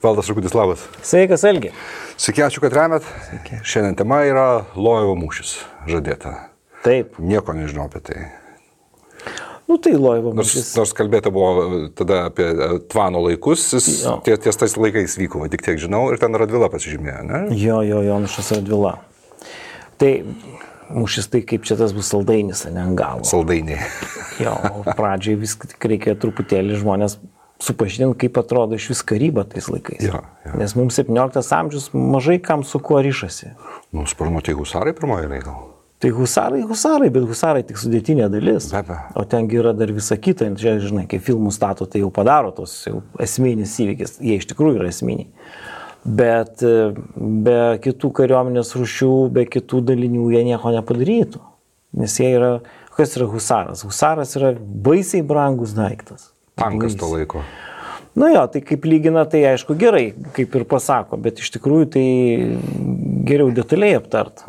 Valdas Rakutis, labas. Sveikas, Algi. Sveiki, ačiū, kad remet. Šiandien tema yra Lojevo mūšis žadėta. Taip. Nieko nežinau apie tai. Tai Lojevo mūšis. Nors kalbėta buvo tada apie Tvano laikus, ties tais laikais vyko, tik tiek žinau, ir ten Radvila pasižymėjo, ne? Jo, Jonušas Radvila. Tai mūšis tai kaip čia tas bus saldainis, ne ant galo. Saldainiai. Jo, pradžiai viską tik reikia truputėlį žmonės supažinti, kaip atrodo iš vis karyba tais laikais. Jo. Nes mums 17 amžius mažai kam su kuo ryšasi. Sparnu, tai husarai pirmoji eilė gal? Tai husarai, bet husarai tik sudėtinė dalis. Be. O tengi yra dar visa kita. Čia, žinai, kai filmų stato, tai jau padaro tos jau esminis įvykis. Jie iš tikrųjų yra esminiai. Bet be kitų kariuomenės rūšių, be kitų dalinių jie nieko nepadarytų. Nes jie yra... Kas yra husaras? Husaras yra baisiai brangus daiktas. Tankas to laiko. Tai kaip lygina, tai aišku gerai, kaip ir pasako, bet iš tikrųjų tai geriau detaliai aptart,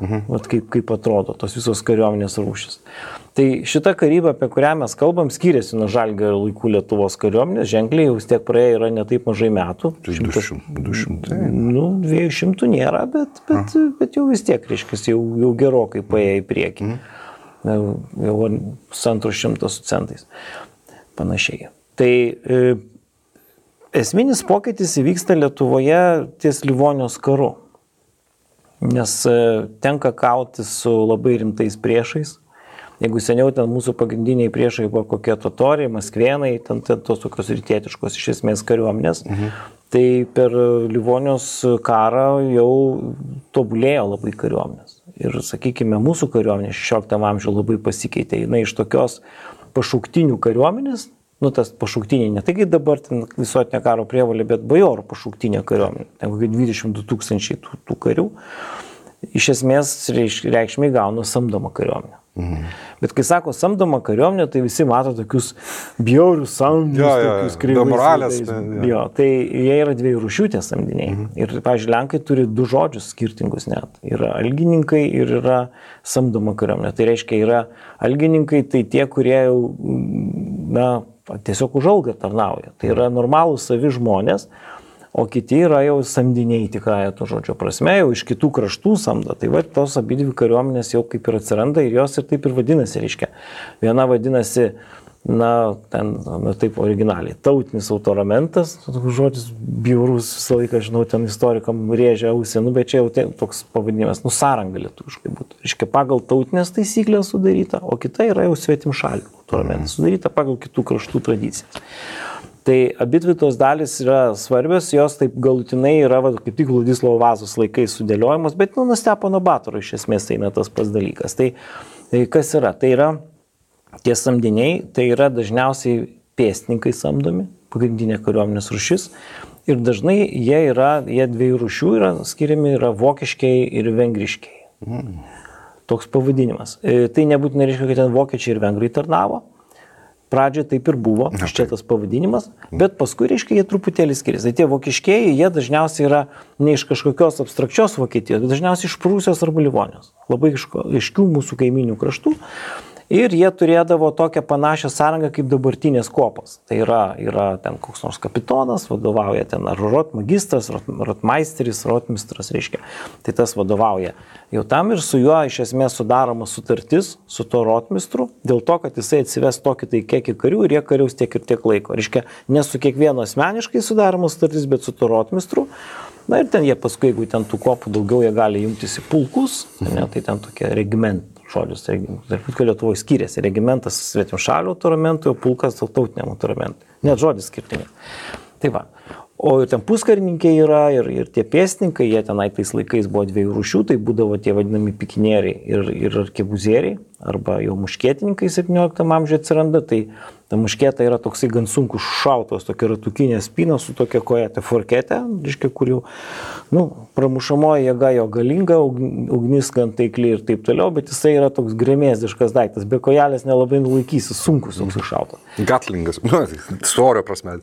kaip atrodo tos visos kariuomenės rūšis. Tai šita karyba, apie kurią mes kalbam, skiriasi nuo Žalgirio laikų Lietuvos kariuomenės, ženkliai jau vis tiek praėjo yra ne taip mažai metų. 200. 200 nėra, bet jau vis tiek, reiškia, jau gerokai paėjo į priekį. Jau 100 su centais. Panašiai. Tai esminis pokytis įvyksta Lietuvoje ties Livonijos karu, nes tenka kauti su labai rimtais priešais. Jeigu seniau ten mūsų pagrindiniai priešai buvo kokie totoriai, maskvėnai, ten tos tokios rytietiškos iš esmės kariuomenės, tai per Livonijos karą jau tobulėjo labai kariuomenės. Ir, sakykime, mūsų kariuomenė 16 amžiuje labai pasikeitė. Jinai iš tokios pašauktinių kariuomenės, tas pašauktiniai, ne tai kaip dabar ten visuotinė karo prievolė, bet bajorų pašauktinė kariuomenė, ten kokie 22 000 tų karių, iš esmės reikšmiai gauna samdomą kariuomenę. Bet kai sako samdomą kariuomenę, tai visi mato tokius bjaurius samdinius, tokius kreivais. Tai jie yra dviejų rūšių tie samdiniai. Ir, pavyzdžiui, Lenkai turi du žodžius skirtingus net. Yra algininkai ir yra samdoma kariuomenė. Tai reiškia, yra algininkai, tai tie, kurie jau, tiesiog už algą tarnauja. Tai yra normalūs savi žmonės, o kiti yra jau samdiniai tikrąją to žodžio prasme, jau iš kitų kraštų samdo. Tai tos abidvi kariuomenės jau kaip ir atsiranda ir jos ir taip ir vadinasi, reiškia. Viena vadinasi, taip originaliai, tautinis autoramentas, žodis bjaurus, visą laiką, žinau, ten istorikam rėžia ausį, bet čia jau toks pavadinimas, sąranga lietuviškai būtų. Reiškia, pagal tautinės taisyklės sudaryta, o kita yra jau svetimšalių autoramentas, sudaryta pagal kitų kraštų tradicijas. Tai abidvi tos dalis yra svarbios, jos taip galutinai yra kaip tik Vladislovo Vazos laikais sudėliojamos, bet nuo Stepono Batoro iš esmės tai tas pats dalykas. Tai kas yra? Tai yra tie samdiniai, tai yra dažniausiai pėstininkai samdomi, pagrindinė kariuomenės rūšis. Ir dažnai jie dviejų rūšių yra skiriami, yra vokiškiai ir vengriškiai. Toks pavadinimas. Tai nebūtinai reiškia, kad ten vokiečiai ir vengrai tarnavo. Pradžioje taip ir buvo, iš čia tas pavadinimas, bet paskui, reiškia, jie truputėlį skiriasi. Tai tie vokiškieji, jie dažniausiai yra ne iš kažkokios abstrakčios Vokietijos, bet dažniausiai iš Prūsijos arba Livonijos. Labai aiškių mūsų kaiminių kraštų. Ir jie turėdavo tokią panašią sąrangą kaip dabartinės kopos. Tai yra ten koks nors kapitonas, vadovauja ten ar rotmagistras, rotmeisteris, rotmistras, reiškia. Tai tas vadovauja jau tam ir su juo iš esmės sudaroma sutartis su to rotmistru, dėl to, kad jisai atsives tokį tai kiekį karių ir jie kariaus tiek ir tiek laiko. Reiškia, ne su kiekvienu asmeniškai sudaroma sutartis, bet su to rotmistru. Ir ten jie paskui, jeigu ten tų kopų daugiau, jie gali jungtis į pulkus, tai ten tokie regimentai. Žodžius, tarp Lietuvoje skiriasi. Regimentas svetimšalių autoramentų, o pulkas tautiniam autoramentų. Net žodis skirtingai. Tai va. O ten puskarininkai yra ir tie pėstininkai, jie tenai tais laikais buvo dviejų rūšių, tai būdavo tie vadinami pikinieriai ir arkebuzieriai, arba jau muškietininkai 17 amžiuje atsiranda, tai ta muškieta yra toksai gan sunkus šautos, tokia ratukinė spyna su tokia kojete forkete, reiškia, kur jau, pramušamoji jėga jo galinga, ugnis gan taikli ir taip toliau, bet jisai yra toks gremėzdiškas daiktas, be kojelės nelabai nulaikysi, sunkus toks šautas. Gatlingas, svorio prasme.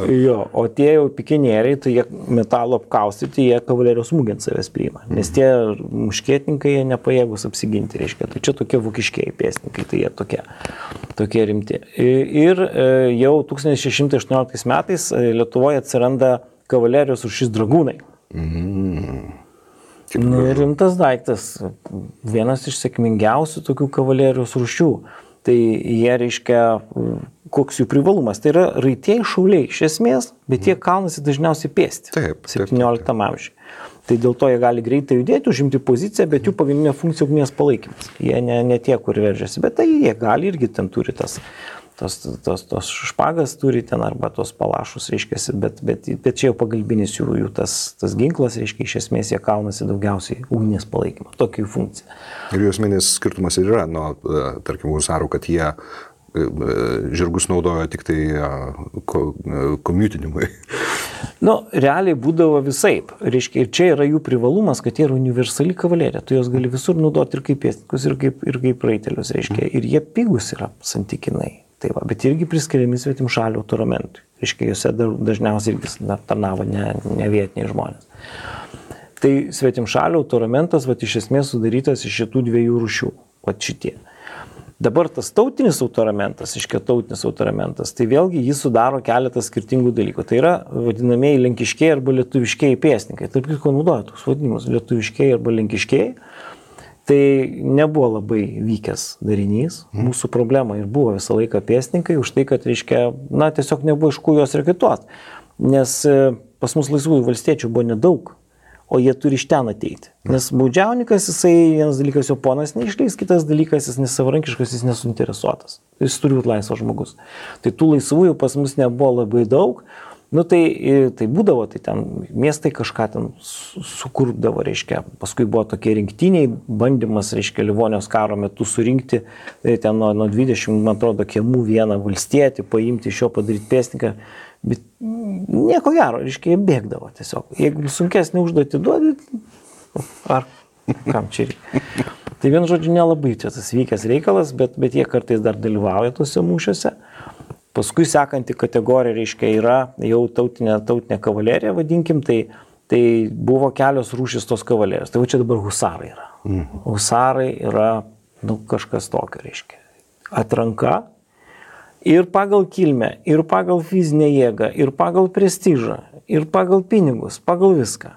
Jo, o tie jau pikinieriai, tai jie metalo apkaustyti, jie kavalerijos smūgį ant savęs priima, nes tie muškietininkai jie nepajėgus apsiginti, reiškia, tai čia tokie vokiškieji pėstininkai, tai jie tokie rimti. Ir jau 1618 metais Lietuvoje atsiranda kavalerijos rūšis dragūnai. Rimtas daiktas, vienas iš sėkmingiausių tokių kavalerijos rūšių. Tai jie reiškia, koks jų privalumas. Tai yra raitieji šauliai iš esmės, bet jie kaunasi dažniausiai pėsti. 17 amžiuje. Tai dėl to jie gali greitai judėti, užimti poziciją, bet jų pagrindinė funkcija ugnies palaikymas. Jie ne tie, kur veržiasi, bet tai jie gali irgi ten turi tos špagas turi ten arba tos palašus, reiškia, bet čia jau pagalbinis jų tas ginklas, reiškia, iš esmės jie kaunasi daugiausiai ugnies palaikymą, tokia jų funkcija. Ir jų esminis skirtumas ir yra, tarkim, husarų, kad jie žirgus naudojo tik tai komiutinimui. Realiai būdavo visaip. Reiškia, ir čia yra jų privalumas, kad jie yra universali kavalerija. Tu jos gali visur naudoti ir kaip pėstininkus, ir kaip raitelius, reiškia. Ir jie pigus yra santykinai. Tai va, bet irgi priskiriami svetimšalių autoramentui. Reiškia, juose dažniausiai irgi tarnavo ne vietiniai žmonės. Tai svetimšalių autoramentas, iš esmės sudarytas iš šitų dviejų rūšių. Šitie. Dabar tas tautinis autoramentas, tai vėlgi jis sudaro keletą skirtingų dalykų. Tai yra vadinamieji lenkiškiai arba lietuviškiai pėstininkai. Tarp kitko naudoja toks vadinimus lietuviškiai arba lenkiškiai. Tai nebuvo labai vykęs darinys. Mūsų problema ir buvo visą laiką pėstininkai už tai, kad reiškia, tiesiog nebuvo iš ko juos reketuoti. Nes pas mus laisvųjų valstiečių buvo nedaug. O jie turi iš ten ateiti. Nes baudžiauninkas, jisai vienas dalykas jo ponas neišleis, kitas dalykas jis nesavarankiškas, jis nesuinteresuotas. Jis turi būti laisvas žmogus. Tai tų laisvųjų pas mus nebuvo labai daug. Tai būdavo, tai ten miestai kažką ten sukurdavo, reiškia. Paskui buvo tokie rinktiniai bandymas, reiškia, Livonijos karo metu surinkti ten nuo 20, man atrodo, kiemų vieną valstietį, paimti iš jo padaryti pėstininką. Bet nieko gero, reiškia, jie bėgdavo tiesiog. Jeigu sunkesnį užduotį duodi, ar kam čia reikia. Tai vien žodžiu nelabai čia tas vykęs reikalas, bet jie kartais dar dalyvauja tuose mūšiuose. Paskui sekanti kategorija, reiškia, yra jau tautinė kavalerija, vadinkim, tai buvo kelios rūšys tos kavalerijos. Tai čia dabar husarai yra. Husarai yra kažkas tokio, reiškia. Atranka. Ir pagal kilmę, ir pagal fizinę jėgą, ir pagal prestižą, ir pagal pinigus, pagal viską.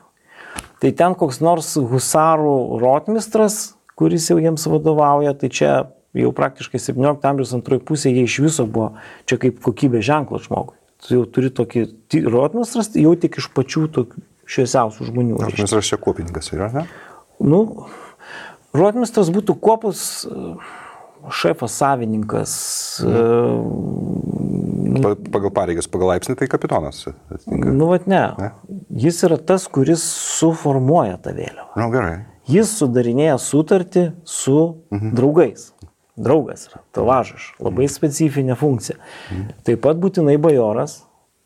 Tai ten koks nors husarų rotmistras, kuris jau jiems vadovauja, tai čia jau praktiškai 17 amžiaus antroji pusė jie iš viso buvo čia kaip kokybė ženklas žmogui. Tu jau turi tokį rotmistras, jau tik iš pačių tokių šviesiausių žmonių. Rotmistras čia kuopininkas yra, ne? Rotmistras būtų kuopos šefas, savininkas. Pagal pareigas, pagal laipsnį tai kapitonas. Ne. Jis yra tas, kuris suformuoja tą vėliavą. Gerai. Jis sudarinėja sutartį su draugais. Draugas yra, tavažas, labai specifinė funkcija. Taip pat būtinai bajoras,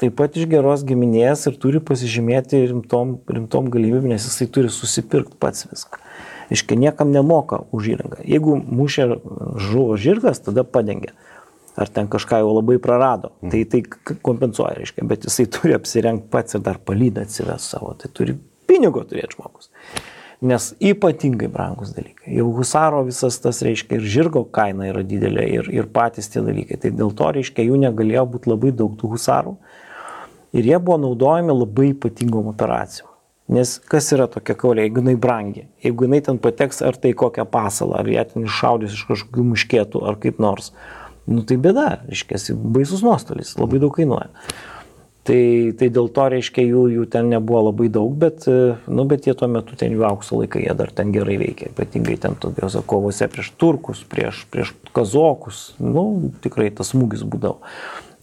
taip pat iš geros giminės ir turi pasižymėti rimtom galimybėm, nes jisai turi susipirkti pats viską. Iškai niekam nemoka už įrangą. Jeigu mūšė žuvo žirgas, tada padengia. Ar ten kažką jau labai prarado. Tai kompensuoja, reiškia. Bet jisai turi apsirengti pats ir dar palydą atsives savo. Tai turi pinigo turėti žmogus. Nes ypatingai brangus dalykai. Jau husaro visas tas, reiškia, ir žirgo kaina yra didelė ir patys tie dalykai. Tai dėl to, reiškia, jų negalėjo būti labai daug tų husarų. Ir jie buvo naudojami labai ypatingom operacijom. Nes kas yra tokia kavalė, jeigu jinai brangi, jeigu jinai ten pateks ar tai kokią pasalą, ar ją ten iššaudys iš kažkokių muškėtų, ar kaip nors, tai bėda, reiškia, baisus nuostolis, labai daug kainuoja. Tai dėl to, reiškia, jų ten nebuvo labai daug, bet jie tuo metu ten jų aukso laikai, jie dar ten gerai veikia, ypatingai ten tokiose kovose prieš turkus, prieš kazokus, tikrai tas smūgis būdavo.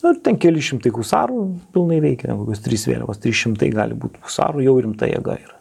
Ir ten keli šimtai husarų pilnai veikia, kokios 3 vėliavos, 300 gali būti husarų, jau rimta jėga yra.